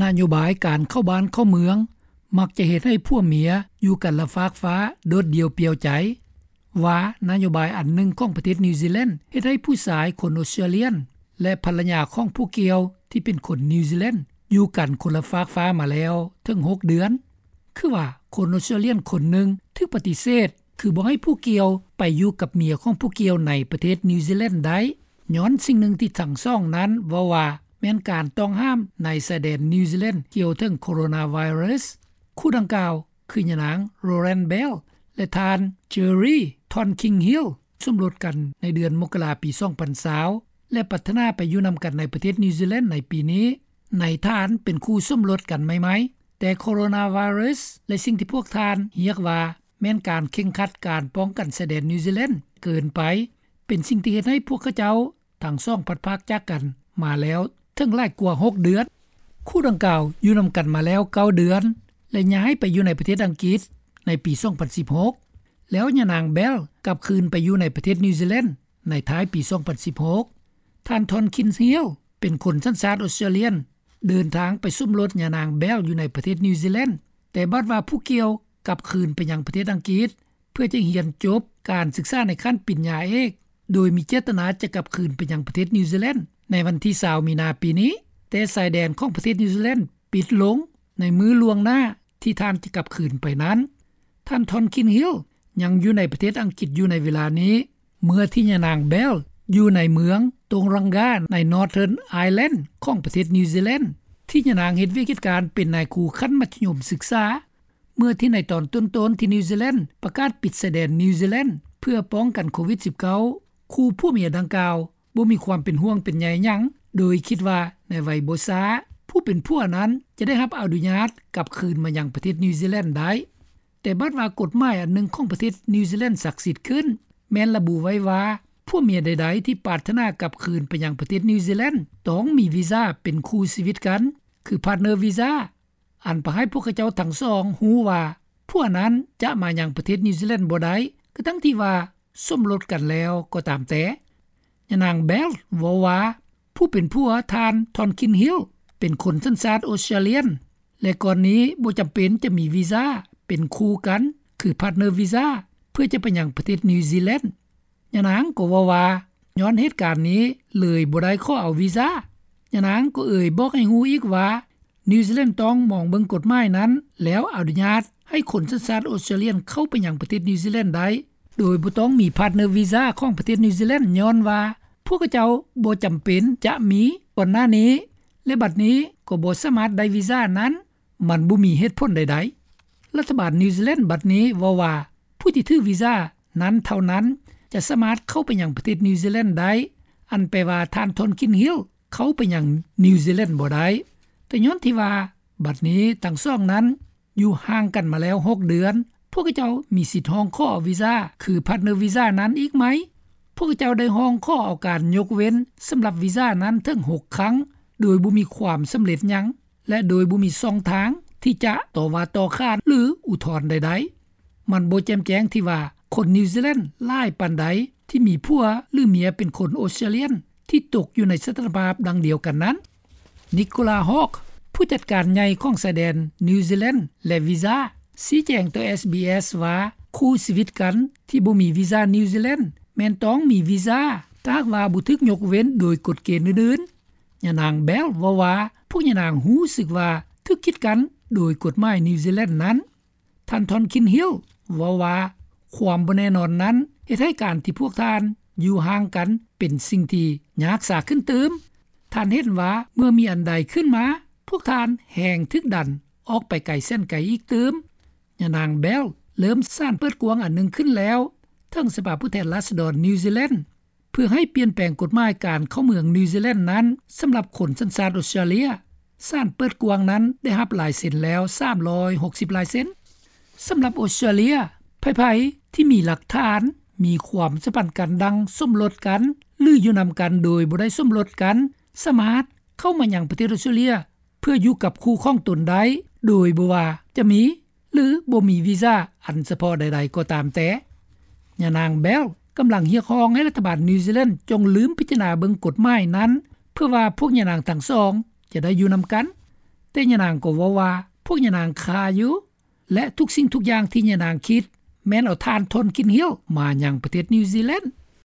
ນະໂຍບາຍການເຂົ້າບ້ານເຂົ້າເມືອງ ມັກຈະເຮັດໃຫ້ຜົວເມຍຢູ່ກັນລະຟາກຟ້າ ໂດດດ່ຽວປ່ຽວໃຈ ວ່ານະໂຍບາຍອັນໜຶ່ງຂອງປະເທດນິວຊີແລນ ເຮັດໃຫ້ຜູ້ຊາຍຄົນອົດສະຕຣາເລຍນ ແລະ ພັນລະຍາຂອງຜູ້ກ່ຽວທີ່ເປັນຄົນນິວຊີແລນ ຢູ່ກັນຄົນລະຟາກຟ້າມາແລ້ວເຖິງຫົກເດືອນ. ຄືວ່າຄົນອົດສະຕຣາເລຍນຄົນໜຶ່ງຖືກປະຕິເສດ ຄືບໍ່ໃຫ້ຜູ້ກ່ຽວໄປຢູ່ກັບເມຍຂອງຜູ້ກ່ຽວໃນປະເທດນິວຊີແລນໄດ້ ຍ້ອນສິ່ງໜຶ່ງທີ່ທັງສອງນັ້ນເວົ້າວ່າ ແມ່ນການຕ້ອງຫ້າມໃນຊາຍແດນນິວຊີແລນກ່ຽວເຖິງໂຄໂຣນາໄວຣັສ. ຄູ່ດັ່ງກ່າວຄືຍານາງ ໂຣແລນ ເບລ ແລະ ທ່ານ ເຈີຣີ ທອນຄິງຮິລ ສົມລົດກັນໃນເດືອນມົກກະລາປີສອງພັນຊາວ ແລະ ປັດຖະໜາໄປຢູ່ນຳກັນໃນປະເທດນິວຊີແລນໃນປີນີ້ ໃນຖານເປັນຄູ່ສົມລົດກັນໃໝ່ໆ. ແຕ່ໂຄໂຣນາໄວຣັສ ແລະ ສິ່ງທີ່ພວກທ່ານຮຽກວ່າແມ່ນການເຄັ່ງຄັດການປ້ອງກັນຊາຍແດນນິວຊີແລນເກີນໄປ ເປັນສິ່ງທີ່ເຮັດໃຫ້ພວກເຂົາເຈົ້າທັງສອງພັດພາກຈາກກັນມາແລ້ວເຖິງຫຼາຍກວ່າຫົກເດືອນ. ຄູ່ດັ່ງກ່າວຢູ່ນຳກັນມາແລ້ວເກົ້າເດືອນ ແລະ ຍ້າຍໄປຢູ່ໃນປະເທດອັງກິດໃນປີສອງພັນສິບຫົກ ແລ້ວຍານາງ ເບລ ກັບຄືນໄປຢູ່ໃນປະເທດນິວຊີແລນໃນທ້າຍປີສອງພັນສິບຫົກ. ທ່ານ ທອນຄິນຮິລ ເປັນຄົນສັນຊາດອົດສະຕຣາເລຍນ ເດີນທາງໄປສົມລົດຍານາງ ເບລ ຢູ່ໃນປະເທດນິວຊີແລນ ແຕ່ບັດວ່າຜູ້ກ່ຽວກັບຄືນໄປຍັງປະເທດອັງກິດ ເພື່ອຈະຮຽນຈົບການສຶກສາໃນຂັ້ນປະລິນຍາເອກ ໂດຍມີເຈດຕະນາຈະກັບຄືນໄປຍັງປະເທດນິວຊີແລນໃນວັນທີຊາວມີນາປີນີ້ ແຕ່ຊາຍແດນຂອງປະເທດນິວຊີແລນປິດລົງໃນມື້ລ່ວງໜ້າທີ່ທ່ານຈະກັບຄືນໄປນັ້ນ. ທ່ານ ທອນຄິນຮິລ ຍັງຢູ່ໃນປະເທດອັງກິດຢູ່ໃນເວລານີ້ ເມື່ອທີ່ຍານາງ ເບລ ຢູ່ໃນເມືອງໂຕງຣັງກາ ໃນ Northern Island ຂອງປະເທດນິວຊີແລນ ທີ່ຍານາງເຮັດວຽກເຮັດການເປັນນາຍຄູຂັ້ນມັດທະຍົມສຶກສາ. ເມື່ອທີ່ໃນຕອນຕົ້ນໆທີ່ນິວຊີແລນປະກາດປິດຊາຍແດນນິວຊີແລນເພື່ອປ້ອງກັນໂຄວິດສິບເກົ້າ ຄູ່ຜົວເມຍດັ່ງກ່າວບໍ່ມີຄວາມເປັນຫ່ວງເປັນໃຍຫຍັງ ໂດຍຄິດວ່າໃນໄວບໍ່ຊ້າ ຜູ້ເປັນຜົວນັ້ນຈະໄດ້ຮັບອະນຸຍາດກັບຄືນມາຍັງປະເທດນິວຊີແລນໄດ້. ແຕ່ບັດວ່າກົດໝາຍອັນໜຶ່ງຂອງປະເທດນິວຊີແລນສັກສິດຂຶ້ນ ແມ່ນລະບຸໄວ້ວ່າ ຜົວເມຍໃດໆທີ່ປາດຖະໜາກັບຄືນໄປຍັງປະເທດນິວຊີແລນ ຕ້ອງມີວີຊາເປັນຄູ່ຊີວິດກັນ ຄື partner visa ອັນປະໃຫ້ພວກເຂົາເຈົ້າທັງສອງຮູ້ວ່າ ຜົວນັ້ນຈະມາຍັງປະເທດນິວຊີແລນບໍ່ໄດ້ ກະທັງທີ່ວ່າສົມລົດກັນແລ້ວກໍຕາມແຕ່. ຍານາງ ເບລ ເວົ້າວ່າ ຜູ້ເປັນຜົວທ່ານ ທອນຄິນຮິລ ເປັນຄົນສັນຊາດອົດສະຕຣາເລຍນ ແລະ ກ່ອນນີ້ບໍ່ຈຳເປັນຈະມີວີຊາເປັນຄູ່ກັນ ຄື partner visa ເພື່ອຈະໄປຍັງປະເທດນິວຊີແລນ. ຍານາງກໍເວົ້າວ່າ ຍ້ອນເຫດການນີ້ເລີຍບໍ່ໄດ້ຂໍເອົາວີຊາ. ຍານາງກໍເອີ່ຍບອກໃຫ້ຮູ້ອີກວ່າ ນິວຊີແລນຕ້ອງມອງເບິ່ງກົດໝາຍນັ້ນ ແລ້ວອະນຸຍາດໃຫ້ຄົນສັນຊາດອົດສະຕຣາເລຍນເຂົ້າໄປຍັງປະເທດນິວຊີແລນໄດ້ ໂດຍບໍ່ຕ້ອງມີ partner visa ຂອງປະເທດນິວຊີແລນ ຍ້ອນວ່າພວກເຂົາເຈົ້າບໍ່ຈຳເປັນຈະມີກ່ອນໜ້ານີ້ ແລະ ບັດນີ້ກໍບໍ່ສາມາດໄດ້ວີຊານັ້ນ ມັນບໍ່ມີເຫດຜົນໃດໆ. ລັດຖະບານນິວຊີແລນບັດນີ້ເວົ້າວ່າ ຜູ້ທີ່ຖືວີຊານັ້ນເທົ່ານັ້ນຈະສາມາດເຂົ້າໄປຍັງປະເທດນິວຊີແລນໄດ້ ອັນແປວ່າທ່ານ ທອນຄິນຣິລ ເຂົ້າໄປຍັງນິວຊີແລນບໍ່ໄດ້. ແຕ່ຍ້ອນທີ່ວ່າບັດນີ້ທັງສອງນັ້ນຢູ່ຫ່າງກັນມາແລ້ວຫົກເດືອນ ພວກເຂົາເຈົ້າມີສິດຮ້ອງຂໍເອົາວີຊາ ຄື partner visa ນັ້ນອີກໄໝ? ພວກເຂົາເຈົ້າໄດ້ຮ້ອງຂໍເອົາການຍົກເວັ້ນສຳລັບວີຊານັ້ນເຖິງຫົກຄັ້ງ ໂດຍບໍ່ມີຄວາມສຳເລັດຫຍັງ ແລະ ໂດຍບໍ່ມີຊ່ອງທາງທີ່ຈະຕໍ່ວ່າຕໍ່ຂານ ຫຼື ອຸທອນໃດໆ. ມັນບໍ່ແຈ່ມແຈ້ງທີ່ວ່າຄົນນິວຊີແລນຫຼາຍປານໃດທີ່ມີຜົວ ຫຼື ເມຍເປັນຄົນອົດສະຕຣາເລຍນທີ່ຕົກຢູ່ໃນສະຖານະພາບດັ່ງດຽວກັນນັ້ນ. ນິໂກລາ ຮອກ ຜູ້ຈັດການໃຫຍ່ຂອງຊາຍແດນນິວຊີແລນ ແລະ ວີຊາ ຊີ້ແຈງຕໍ່ SBS ວ່າ ຄູ່ຊີວິດກັນທີ່ບໍ່ມີວີຊານິວຊີແລນ ແມ່ນຕ້ອງມີວີຊາ ຖ້າຫາກວ່າບໍ່ຖືກຍົກເວັ້ນໂດຍກົດເກນອື່ນໆ. ຍານາງ ເບລ ເວົ້າວ່າ ພວກຍານາງຮູ້ສຶກວ່າຖືກກີດກັ້ນໂດຍກົດໝາຍນິວຊີແລນນັ້ນ. ທ່ານ ທອນຄິນຮິລ ເວົ້າວ່າ ຄວາມບໍ່ແນ່ນອນນັ້ນເຮັດໃຫ້ການທີ່ພວກທ່ານຢູ່ຫ່າງກັນເປັນສິ່ງທີ່ຍາກສາຂຶ້ນຕື່ມ. ທ່ານເຫັນວ່າເມື່ອມີອັນໃດຂຶ້ນມາ ພວກທ່ານແຮ່ງຖືກດັນອອກໄປໄກແສນໄກອີກຕື່ມ. ຍານາງ ເບລ ເລີ່ມສານເປີດກວ້າງອັນໜຶ່ງຂຶ້ນແລ້ວ ເຖິງສະພາຜູ້ແທນລາຊະດອນນິວຊີແລນ ເພື່ອໃຫ້ປ່ຽນແປງກົດໝາຍການເຂົ້າເມືອງນິວຊີແລນນັ້ນ ສຳລັບຄົນສັນຊາດອົດສະຕຣາເລຍ. ສານເປີດກວ້າງນັ້ນໄດ້ຮັບລາຍເຊັນແລ້ວສາມຮ້ອຍຫົກສິບລາຍເຊັນ. ສຳລັບອົດສະຕຣາເລຍ, ໃຜໆທີ່ມີຫຼັກຖານ, ມີຄວາມສຳພັນກັນດັ່ງສົມລົດກັນ ຫຼື ຢູ່ນຳກັນໂດຍບໍ່ໄດ້ສົມລົດກັນ ສາມາດເຂົ້າມາຍັງປະເທດອົດສະຕຣາເລຍ ເພື່ອຢູ່ກັບຄູ່ຂອງຕົນໄດ້ ໂດຍບໍ່ວ່າຈະມີ ຫຼື ບໍ່ມີວີຊາອັນສະເພາະໃດໆກໍຕາມແຕ່. ຍານາງ ເບລ ກຳລັງຮຽກຮ້ອງໃຫ້ລັດຖະບານນິວຊີແລນຈົ່ງລືມພິຈາລະນາເບິ່ງກົດໝາຍນັ້ນ ເພື່ອວ່າພວກຍານາງທັງສອງຈະໄດ້ຢູ່ນຳກັນ. ແຕ່ຍານາງກໍເວົ້າວ່າ ພວກຍານາງຄ້າຢູ່ ແລະ ທຸກສິ່ງທຸກຢ່າງທີ່ຍານາງຄິດ ແມ່ນເອົາຖ່ານ Tonkin Hill ມາຍັງປະເທດນິວຊີແລນ.